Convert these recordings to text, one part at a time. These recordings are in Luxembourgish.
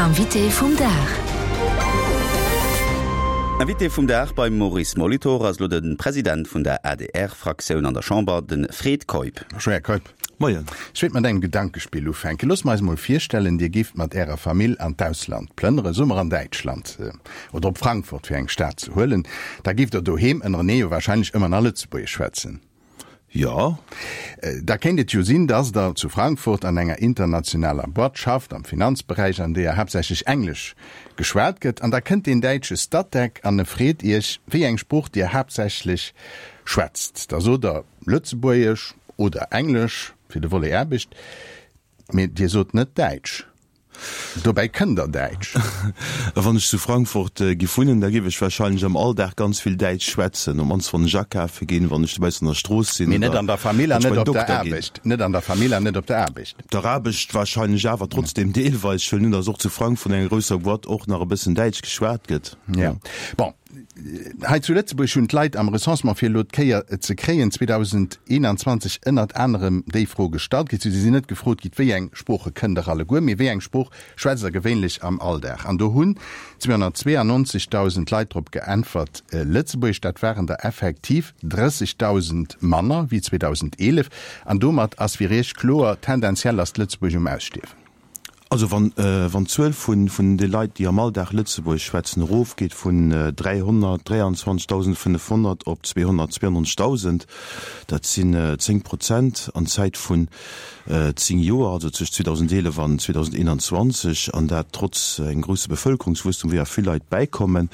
Invité vum Dag. Invité vum Dag beim Maurice Molitor ass elo de President vun der ADR-Fraktioun an der Chamber, de Fred Keup. Bonjour Här Keup. Moien. Ech wéilt mat engem Gedankespill ufänken. Loosst mer eis emol virstellen, Dir géift mat Ärer Famill an d'Ausland plënnere, soe mer an Däitschland oder op Frankfurt, fir eng Stad ze huelen. Da géift Der doheem ënnerenee jo wahrscheinlech ëmmer nach Lëtzebuergesch schwätzen. Jo. Da kéint et jo sinn, dass Der zu Frankfurt an enger internationaler Boîte schafft, am Finanzberäich, an deeër haaptsächlech Englesch geschwat gëtt. An da kënnt deen däitsche Statec an e freet Iech, wéi eng Sprooch Dir haaptsächlech schwätzt. Da sot Der Lëtzebuergesch oder Englesch fir de Volet Aarbecht, mee Dir sot net Däitsch. Dobäi kënnt der Däitsch. A wann ech zu Frankfurt giff wunnen, da giff ech wahrscheinlech am Alldag ganz vill Däitsch schwätzen, op mannst wann ech akafe ginn, wann ech dobaussen an der Strooss sinn Mee net an der Famill an net op der Aarbecht. Net an der Famill an net op der Aarbecht. Op der Aarbecht wahrscheinlech awer trotzdem deelweis. Ech huelen un, dass och zu Frankfurt an enger grousser Boîte och nach e bëssen Däitsch geschwat gëtt. Jo. Bon, Hei zu Lëtzebuerg hunn d'Leit am Recensement fir elo d'Kéier ze kréien 2021 ënnert anerem déi Fro gestallt kritt. Si sinn net gefrot gitt, wéi eng Sprooche kënnt der alleguer, mee wéi eng Sprooch schwätzt der gewéinlech am Alldag? An do hunn 292.000 Leit drop geäntwert, Lëtzebuergesch. Dat waren der effektiv 30.000 manner wéi 2011. An domat ass fir Iech kloer, tendenziell ass d'Lëtzebuergesch um Ausstierwen. Also wann wann d'Zuel vun vun de Leit, déi am Alldag Lëtzebuergesch schwätzen, erofgeet vun 323.500 op 292.000, dat sinn 10 Prozent an Zäit vun 10 Joer, also zwëscht 2011 an 2021, an dat trotz engem grousse Bevëlkerungswuesstum, wou ja vill Leit bäikommen,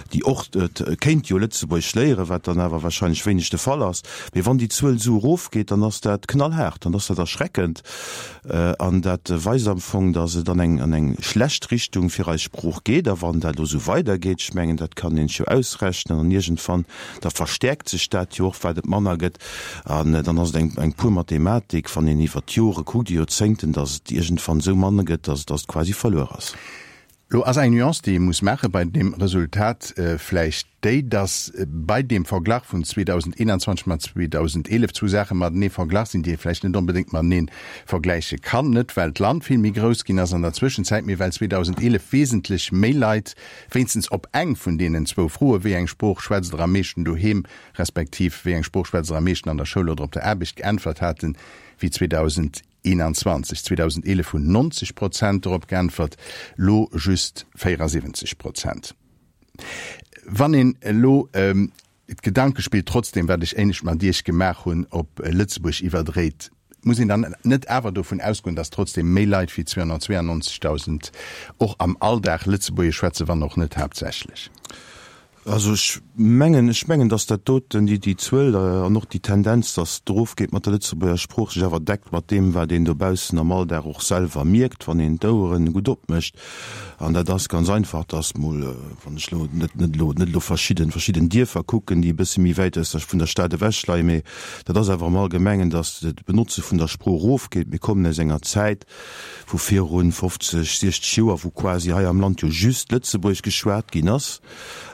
déi och kéint jo Lëtzebuergesch léieren, wat dann awer wahrscheinlech wéineg de Fall ass. Mee wann déi Zuel esou erofgeet, dann ass dat knallhaart, dann ass dat erschreckend. An dat weist am Fong, datt et an eng, an eng schlecht Richtung fir eis Sprooch geet. A wann dat elo esou weidergeet, ech mengen, dat kann een sech jo ausrechnen, an iergendwann, da verstäerkt sech dat jo och, wat et manner gëtt. An dann ass et eng, eng pur Mathematik, wann een iwwert d'Jore kuckt, déi Joerzéngten, datt et iergendwann esou manner gëtt, datt, datt et quasi verluer ass. Lo ass eng Nuance, déi ee muss maache bei deem Resultat vläicht déi, datt bei deem Verglach vun 2021 mat 2011 zwou Saache matenee verglach sinn, déi ee vläicht net onbedéngt matenee vergläiche kann. Net well d'Land vill méi grouss ginn ass an der Zwëschenzäit, mee well 2011 wesentlech méi Leit wéinstens op eng vun deenen zwou Froe, wéi eng Sprooch schwätzt der am meeschten doheem, respektiv wéi eng Sprooch schwätzt der am meeschten an der Schoul oder op der Aarbecht, geäntwert haten, wéi 2011. 21. 2011 hunn 90 Prozent dorop geäntwert, lo just 74 Prozent. Wann een elo d'Gedankespill trotzdem, wat ech éinescht mat Iech gemaach hunn, op Lëtzebuerg iwwerdréit, muss een dann net awer dovun ausgoen, datt trotzdem méi Leit wéi 292.000 och am Alldag Lëtzebuergesch schwätzen, wann och net haaptsächlech? Also ech mengen, ech mengen, datt dat doten, déi, déi Zuel an och déi Tendenz, datt et erofgeet mat der Lëtzebuerger Sprooch, sech awer deckt mat deem, wat een dobaussen am Alldag och selwer mierkt, wann een d'Oueren gutt opmécht. An dat ass ganz einfach, datt mol, wann ech elo net, net elo, net elo verschidden, verschidden Dierfer kucken, déi e bësse méi wäit aus der, vun der Stad ewech leien, mee dat ass awer am Allgemengen, datt d'Benotze vun der Sprooch erofgeet. Mir kommen aus enger Zäit, vu virun 50, 60 Joer, wou quasi hei am Land jo just Lëtzebuergesch geschwat ginn ass.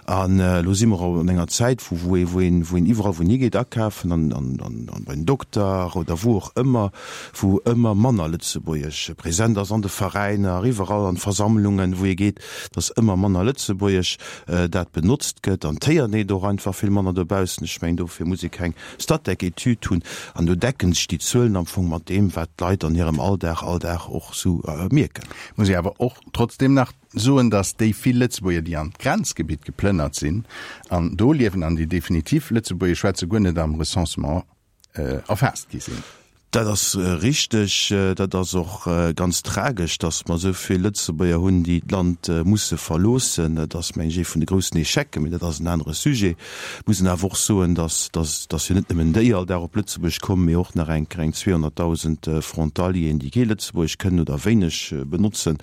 An elo si mer an enger Zäit, wou wou ee wou een wou een iwwerall wou een higeet akafen an an an bei den Dokter oder wou och ëmmer, wou ëmmer manner Lëtzebuergesch present ass, an de Veräiner, iwwerall an Versammlungen, wou ee geet, dass ëmmer manner Lëtzebuergesch dat benotzt gëtt. An d'Héiert een et och einfach vill manner dobaussen. Ech mengen, dofir muss ee keng Statec-Etüd hunn, an do decken sech déi Zuelen am Fong mat deem, wat d'Leit an hirem Alldag all Dag och sou mierken. Muss ee awer och trotzdem nach soen, datt déi vill Lëtzebuerger, déi an d'Grenzgebitt geplënnert sinn an do liewen an déi definitiv Lëtzebuergesch schwätzen, guer net am Recensement erfaasst gi sinn. Dat ass richteg. Dat ass och ganz tragesch, datt mer esou vill Lëtzebuerger hunn, déi d'Land musse verloossen. Dat ass, meng ech, ee vun de groussen Echecen, mee dat ass en anere Sujet. Et muss een awer och soen, datt, datt jo net nëmmen déi all Dag op Lëtzebuerg kommen, mee och nach eng eng 200.000 Frontalieren, déi kee Lëtzebuergesch kënnen oder wéineg benotzen.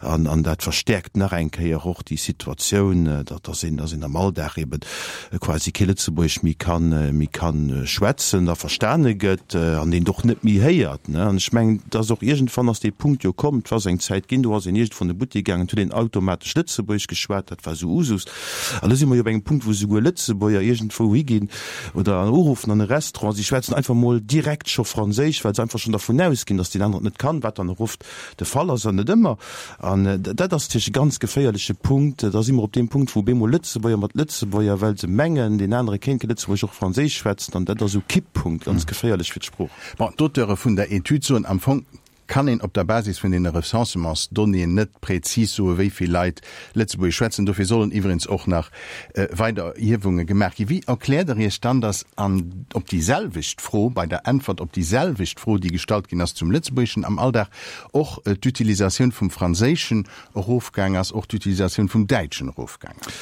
An, an dat verstäerkt nach eng Kéier och déi Situatioun, datt, datt een, datt een am Alldag eeben quasi kee Lëtzebuergesch méi kann, méi kann schwätzen a verstane gëtt an deen och. och net méi héiert, ne. An ech mengen, dass och iergendwann ass dee Punkt jo komm, et ass eng Zäit ginn, do ass een iergendwou an de Buttek gaangen, huet een automatesch Lëtzebuergesch geschwat, dat war esou Usus. An elo si mer jo op engem Punkt, wou souguer Lëtzebuerger iergendwou higinn oder uruffen an e Restaurant, si schwätzen einfach mol direkt scho Franséisch, well se einfach schonn dervun ausginn, dass deen aneren et net kann, wat dann och oft de Fall ass an net ëmmer. An dat ass natierlech e ganz geféierleche Punkt. Da si mer op deem Punkt, wou op eemol Lëtzebuerger mat Lëtzebuerger, well se mengen, deen anere kéint kee Lëtzebuergesch, och Franséisch schwätzen. An dat ass esou Kipppunkt, ganz geféierlech fir d'Sprooch. Bon, d'Auteure vun der Etüd soen, am Fong kann een op der Basis vun deene Recensementsdonnéeën net prezis soen, wéi vill Leit Lëtzebuergesch schwätzen. Dofir sollen iwwregens och nach weider Erhiewunge gemaach ginn. Wéi erkläert Der Iech dann, datt an op déi selwecht Fro, bei der Äntwert op déi selwecht Fro, déi gestallt ginn ass zum Lëtzebuergeschen am Alldag, och d'Utilisatioun vum Franséischen erofgaang ass, och d'Utilisatioun vum Däitschen erofgaang ass.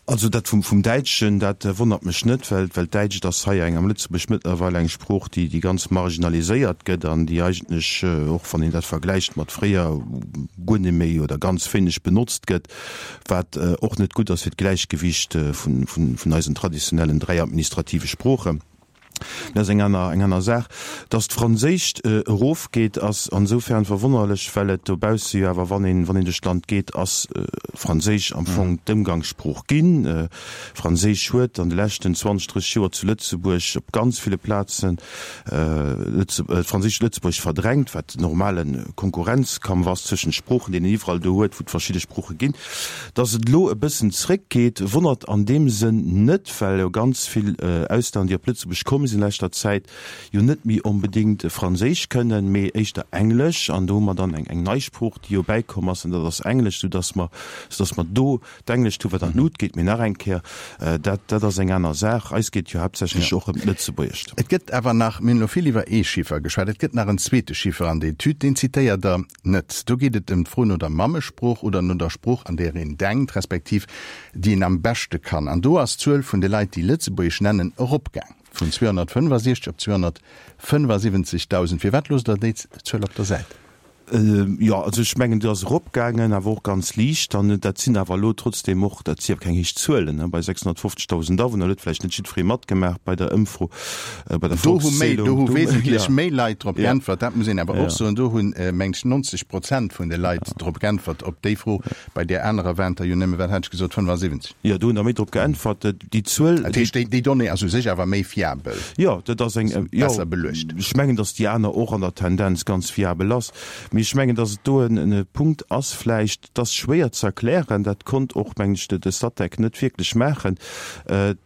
Also dat vum Däitschen, dat wonnert mech net, well well d'Däitscht ass hei eng am Lëtzebuerg mëttlerweil eng Sprooch, déi déi ganz marginaliséiert gëtt an déi eigentlech, och wann een dat vergläicht mat fréier, guer net méi oder ganz wéineg benotzt gëtt, wat och net gutt ass fir d'Gläichgewicht vun vun eisen traditionellen 3 administrative Sproochen. Dat ass eng aner, eng aner Saach. Datt d'Franséischt erofgeet, ass ansoufern verwonnerlech, well et dobausse jo awer, wann een, wann een duerch d'Land geet, ass Franséisch am Fong d'Ëmgangssprooch ginn. Franséisch huet an de leschten 20, 30 Joer zu Lëtzebuerg op ganz ville Plazen d'Franséischt Lëtzebuerg verdrängt, wat normale Konkurrenzkampf ass zwëschent Sproochen, deen een iwwerall do huet, wou et verschidde Sprooche ginn. Datt et elo e bëssen zréckgeet, wonnert an deem Sënn net, well jo ganz vill Auslänner, déi op Lëtzebuerg komm sinn a leschter Zäit, jo net méi onbedéngt Franséisch kënnen, mee éischter Englesch. An do hu mer dann eng nei Sprooch, déi jo bäikomm ass, an dat ass Englesch, soudatt mer, soudatt mer do d'Englescht hu wat an d'Lut geet. Mee nach eng Kéier, dat, dat ass eng aner Saach. Eis geet et jo haaptsächlech och ëm d'Lëtzebuergescht. Et gëtt awer nach, mir hunn elo vill iwwer ee Chiffer geschwat, et gëtt nach en zweete Chiffer an der Etüd, deen zitéiert Der net. Do geet et ëm d'Fro no der Mammesprooch oder no der Sprooch, an där een denkt, respektiv déi een am beschte kann. An do ass d'Zuel vun de Leit, déi Lëtzebuergesch nennen, eropgaang vun 265 op 275.000. Firwat loosst Der déi Zuel op der Säit? Jo, also ech mengen, déi ass eropgaangen, awer och ganz liicht. An dat sinn awer elo trotzdeem och, dat si awer keng héich Zuelen, bei 650.000 Awunner huet vläicht net jiddweree matgemaach bei der Ëmfro. Bei der Do hu méi, do hu wesentlech méi Leit drop geäntwert, dat muss een awer och soen. Do hunn, meng ech, 90 Prozent vun de Leit drop geäntwert op déi Fro. Bei där anerer waren et der jo nëmme, wat hat ech gesot, 75. Jo, do hunn der méi drop geäntwert. Déi Zuel. Dat heescht, déi Donnée ass u sech awer méi fiabel. Jo, dat ass eng, jo. Besser beluecht. Ech mengen, datt déi aner och an der Tendenz ganz fiabel ass. Mee ech mengen, datt et do e Punkt ass vläicht, dat ass schwéier ze erklären, dat konnt och, mengen ech, de Statec net wierklech maachen.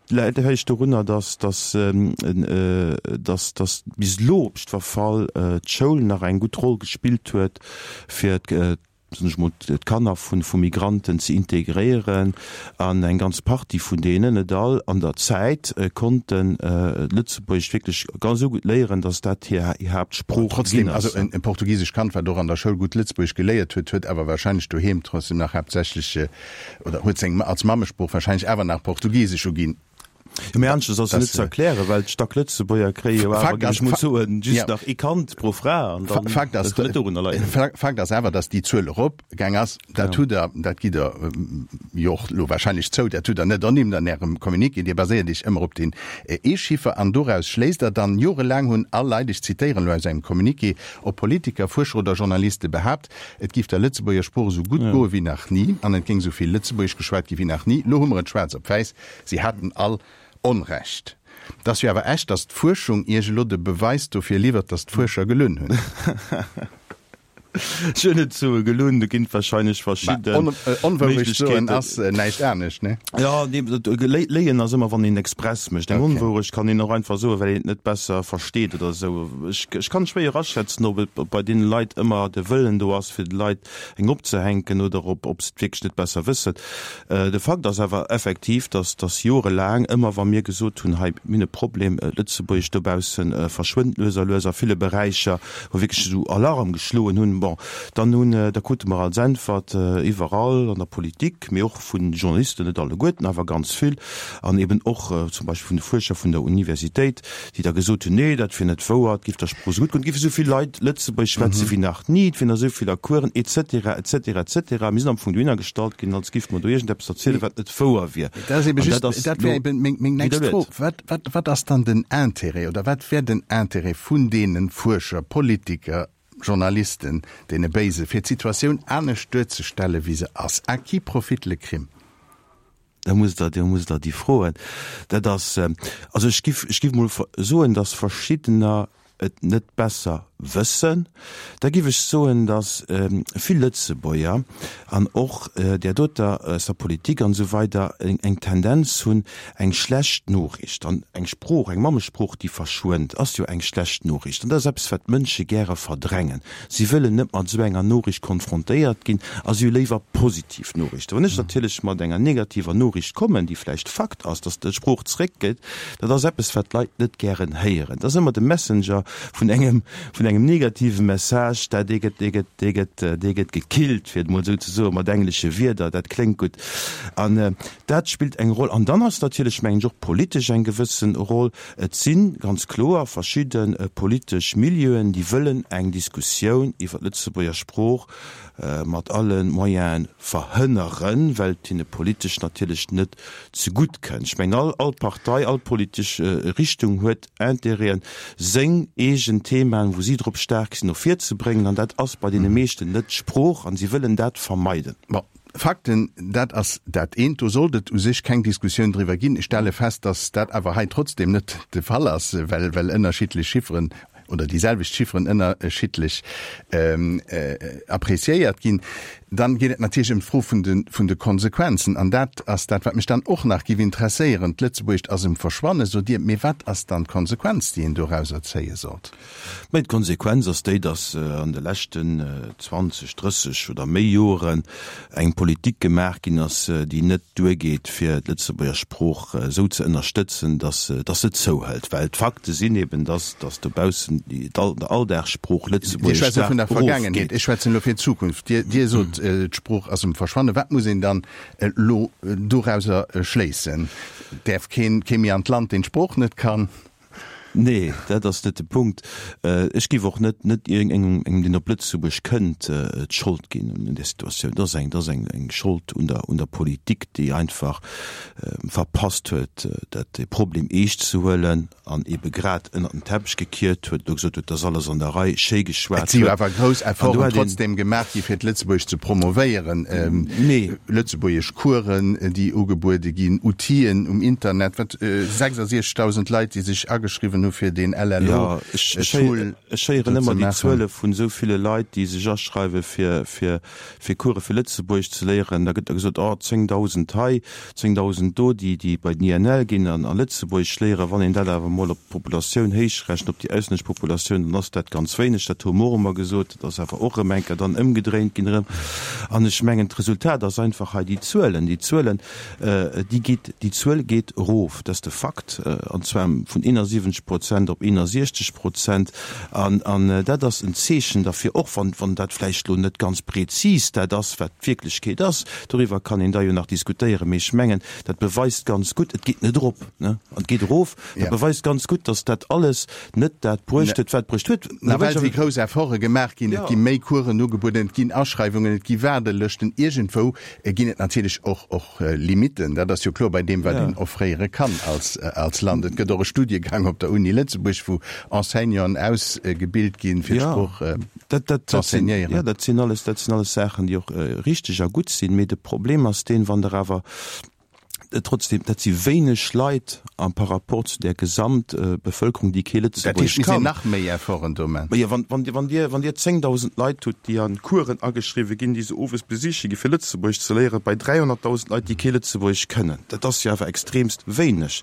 Läit vläicht dorunner, datt, datt, datt, datt bis elo op jiddwer Fall d'Schoul nach eng gutt Roll gespillt huet, fir soen ech mol, d'Kanner vu vu Migranten ze integréieren an eng ganz Partie vun deenen, net all, an der Zäit konnten Lëtzebuergesch wierklech ganz esou gutt léieren, datt dat hir Haaptsprooch ginn ass. Trotzdem, also e portugisescht Kand, wat och an der Schoul gutt Lëtzebuergesch geléiert huet, huet awer wahrscheinlech doheem trotzdem nach haaptsächlech, oder huet seng als Mammesprooch wahrscheinlech awer nach Portugisesch uginn. Jo, mee aneschters ass jo net ze erklären, well d'Stack-Lëtzebuerger kréie jo awer, géif ech mol soen, just nach ee Kand pro Fra an dann, Fakt ass, dat kann net dorunner leien. Fakt ass awer, datt déi Zuel eropgaang ass. Dat hutt Der, dat gitt Der jo och elo wahrscheinlech zou, dat hutt Der net ernimmt an Ärem Communiqué. Dir baséiert Iech ëmmer op deen ee Chiffer an doraus schléisst Der dann, Jorelaang hunn all Leit, ech zitéieren elo aus engem Communiqué, ob Politiker, Fuerscher oder Journaliste behaapt, Et giff der Lëtzebuerger Sprooch esou gutt goe wéi nach ni an et géing esou vill Lëtzebuergesch geschwat gi wéi nach ni. Lo hu mer et schwaarz op wäiss, si haten all Onrecht. Et ass jo awer echt, datt d'Fuerschung Iech elo de Beweis dofir liwwert, datt d'Fuerscher gelunn hunn. Ech hunn net soe gelunn, do ginn et wahrscheinlech verschidde Onwourecht soen ass näischt anescht, ne? Jo, nee, léien ass ëmmer, wann een express mécht. Eng Onwourecht kann een och einfach soen, well een et net besser versteet oder esou. Ech, ech kann schwéier aschätzen, ob et bei deene Leit ëmmer de Wëllen do ass, fir de Leit eng opzehänken oder ob, ob se et wierklech net besser wëssen. De Fakt ass awer effektiv, dass, dass jorelaang, ëmmer wa mir gesot hunn, hei, mir hunn e Problem, d'Lëtzebuergescht dobausse verschwënnt lues a lues a ville Beräicher, wou wierklech esou Alarm geschloen hunn. An, bon, dann hunn, da krute mer als Äntwert iwwerall an der Politik, mee och vu Journalisten, net alleguerten, awer ganz vill, an eben och zum Beispill vun de Fuerscher vun der Universitéit, déi da gesot hunn, nee, dat wier net wouer, et géif der Sprooch esou gutt goen, et géife esou vill Leit Lëtzebuergesch schwätze wéi nach ni, et wieren der esou vill a Coursen, et cetera, et cetera, et cetera. Mir sinn am Fong dohinner gestallt ginn, als géife mer do iergendeppes erzielen, wat net wouer wier. Dat ass ebe just, dat wär eben meng, meng nächst Fro. Wat, wat, wat ass dann den Intérêt oder wat wär den Intérêt vun deene Fuerscher, Politiker, Journalisten, deene Béise, fir d'Situatioun anescht duerzestellen, wéi se ass? À qui profite le crime? Da musst Der, da musst Der déi froen. Dat ass, also ech giff, ech giff mol soen, datt verschiddener et net besser wëssen. Da giff ech soen, datt vill Lëtzebuerger an och där doter aus der Politik an esou weider eng Tendenz hunn, eng schlecht Noriicht an eng Sprooch, eng Mammesprooch, déi verschwënnt, ass jo eng schlecht Noriicht. An dat ass eppes, wat d'Mënsche gäre verdrängen. Si wëllen net mat esou enger Noriicht konfrontéiert ginn a si hu léiwer positiv Noriichten. Wann ech natierlech mat enger negativer Noriicht kommen, déi vläicht Fakt ass, datt d'Sprooch zeréckgeet, dat ass eppes, wat d'Leit net gären héieren. Dat ass ëmmer de Messenger vun engem, vun engem negative Message, dat dee gëtt, dee gëtt, dee gëtt, dee gëtt gekillt, fir et emol esou ze soen, mat englesche Wierder, dat kléngt gutt. An dat spillt eng Roll. An dann ass natierlech, mengen ech, och politesch eng gewëssen Roll. Et si ganz kloer verschidde politesch Milieuen, déi wëllen eng Diskussioun iwwer d'Lëtzebuerger Sprooch mat alle Moyene verhënneren, well et hinne politesch natierlech net zegutt kënnt. Ech mengen, all all Partei, all politesch Richtung huet Intérêten, seng eegen Themaen, wou si drop staark sinn, no vir ze bréngen. An dat ass bei deene meeschten net d'Sprooch a si wëllen dat vermeiden. Bon, Fakten, dat ass dat eent, do sollt et u sech keng Diskussioun driwwer ginn. Ech stelle fest, datt dat awer hei trotzdem net de Fall ass, well well ënnerschiddlech Chifferen oder déi selwecht Chifferen ënnerschiddlech appréciéiert ginn. Dann geet et natierlech ëm d'Fro vun de vun de Konsequenzen. An dat ass dat, wat mech dann och nach géif interesséieren. D'Lëtzebuergescht ass um Verschwannen, sot Dir. Mee wat ass dann d'Konsequenz, déi een dorauser zéie sollt? Mä d'Konsequenz ass déi, datt an de leschten 20, 30 oder méi Joren eng Politik gemaach ginn ass, déi net duergeet, fir d'Lëtzebuerger Sprooch esou ze ënnerstëtzen, datt se zouhëlt. Well d'Fakte sinn eben, datt dobaussen d'Alldagssprooch Dir Lëtzebuergesch schwätzt elo vun der staark Vergaangenheet, erofgeet. ech schwätzen elo fir d'Zukunft. Dir, Dir sot, d'Sprooch ass um Verschwannen. Wat muss een dann elo dorauser schléissen? Däerf keen, kee méi an d'Land, deen d'Sprooch net kann? Nee, dat ass net de Punkt. Ech géif och net net iergendengem, deen op Lëtzebuerg kënnt, d'Schold ginn un där Situatioun. Dat ass eng, dat ass eng eng Schold un der un der Politik, déi einfach verpasst huet, dat dee Problem eescht ze huelen an ebe grad ënnert den Teppech gekiert huet, elo gesot huet, dat ass alles an der Rei, schéi Et geschwat si jo huet. awer grouss An do Efforten hätt een. trotzdem gemaach gi fir d'Lëtzebuergesch ze promovéieren. Nee. Lëtzebuergesch Coursen, déi ugebuede ginn, Outill'en um Internet, wat 66.000 Leit, déi sech ageschriwwen hu fir deen Jo, ech LLO-Tool ech héieren do ze ëmmer déi maachen. Zuele vun esou ville Leit, déi sech aschreiwe fir fir fir Course fir Lëtzebuergesch ze léieren. Da gëtt da gesot, oh 10.000 hei, 10.000 do, déi déi bei den INL ginn an a Lëtzebuergesch léieren. Wann een dat awer emol op d'Populatioun héichrechent, op déi auslännesch Populatioun, dann ass dat ganz wéineg. Dat hu mer och ëmmer gesot. Dat ass awer och erëm eng Kéier dann ëmgedréint ginn erëm. An ech mengen, d'Resultat ass einfach hei déi Zuelen, déi Zuelen, déi geet, déi Zuel geet erof, dat ass de Fakt, an zwar vun 71 Prozent op 61 Prozent. An, an dat ass en Zeechen derfir, och wann, wann dat vläicht elo net ganz prezis dat ass, wat d'Wierklechkeet ass, doriwwer kann een da jo nach diskutéieren, mee ech mengen, dat beweist ganz gutt, et geet net erop, ne, an et geet erof, dat beweist ganz gutt, dass dat alles net dat bruecht huet, wat bruecht huet. Nawell si grouss Efforte gemaach ginn, et gi méi Coursen ugebueden, et ginn Aschreiwungen, et gi Waardelëschten. Iergendwou ginn et natierlech och och Limitten, dat ass jo kloer bei deem, wat een offréiere kann als als Land. Et gëtt och e Studiegang op der Uni Lëtzebuerg, wou Enseignanten ausgebilt ginn, fir d'Sprooch ze enseignéieren. Jo, dat sinn alles, dat sinn alles Saachen, déi och richteg a gutt sinn. Mee de Problem ass deen, wann Der awer Trotzdem, dat si wéineg Leit am par rapport zu där Gesamtbevëlkerung, déi kee Dat heescht, Lëtzebuergesch mir sinn kann. nach méi Efforten do man. Majo, wann, wann Dir, wann Dir, wann Dir 10.000 Leit hutt, déi an Coursen ageschriwwe ginn, déi se owes besiche gi fir Lëtzebuergesch ze léieren, bei 300.000 Leit, déi kee Lëtzebuergesch kënnen, dat ass jo awer extremst wéineg.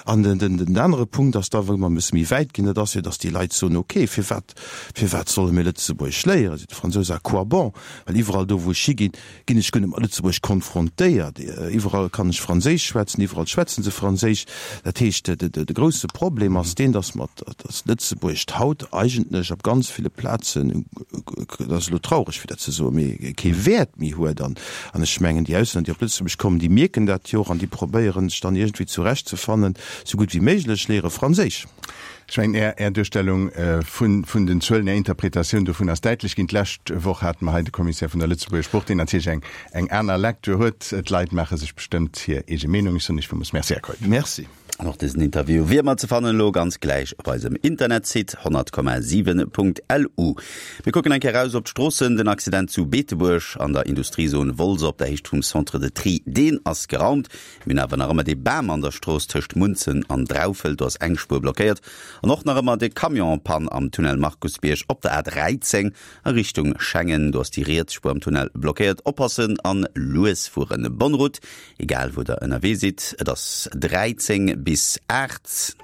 An den, den, den anere Punkt ass da, wou mer e bësse méi wäit ginn, dat ass jo, datt déi Leit soen, okay, firwat, firwat solle mir Lëtzebuergesch léieren, seet de Fransous, à quoi bon? Well iwwerall do, wou ech higinn, ginn ech guer net mat Lëtzebuerg konfrontéiert. Iwwerall kann ech Franséisch schwätzen, iwwerall schwätzen se Franséisch. Dat heescht, de grousse Problem ass deen, datt mer, datt Lëtzebuergescht haut eigentlech op ganz ville Plazen, dat ass elo traureg fir dat ze soen, mee kee Wäert méi huet. An ech mengen, déi Auslänner, déi op Lëtzebuerg kommen, déi mierken dat jo och an déi probéieren sech dann iergendwéi zurechtzefannen, sou gutt wéi méiglech, léiere Franséisch. Ech mengen, Är, Är Duerstellung vun, vun den Zuelen, Är Interpretatioun dovun ass däitlech ginn. D'lescht Woch hate mer hei de Commissaire vun der Lëtzebuerger Sprooch, deen natierlech eng, eng aner Lecture huet. D'Leit maache sech bestëmmt hir eege Meenung. Ech soen Iech villmools Merci, Här Keup. Merci. An och dësen Interview wier ëmmer ze fannen elo ganz gläich op eisem Internetsite 100,7.lu. Mir kucken eng Kéier eraus op d'Stroossen. Den Accident zu Beetebuerg an der Industriezon Wolz op der Héicht vum Centre de Tri, deen ass geraumt. Mir hunn awer nach ëmmer dee Bam an der Strooss tëscht Munzen an Draufelt, do ass eng Spuer blockéiert. An och nach ëmmer de Camion-Pann am Tunnel Markusbierg op der A13 a Richtung Schengen, do ass déi riets Spuer am Tunnel blockéiert. Oppassen an lues fueren. Bonne route, egal wou der ënnerwee sidd. Et ass 13 bis 8.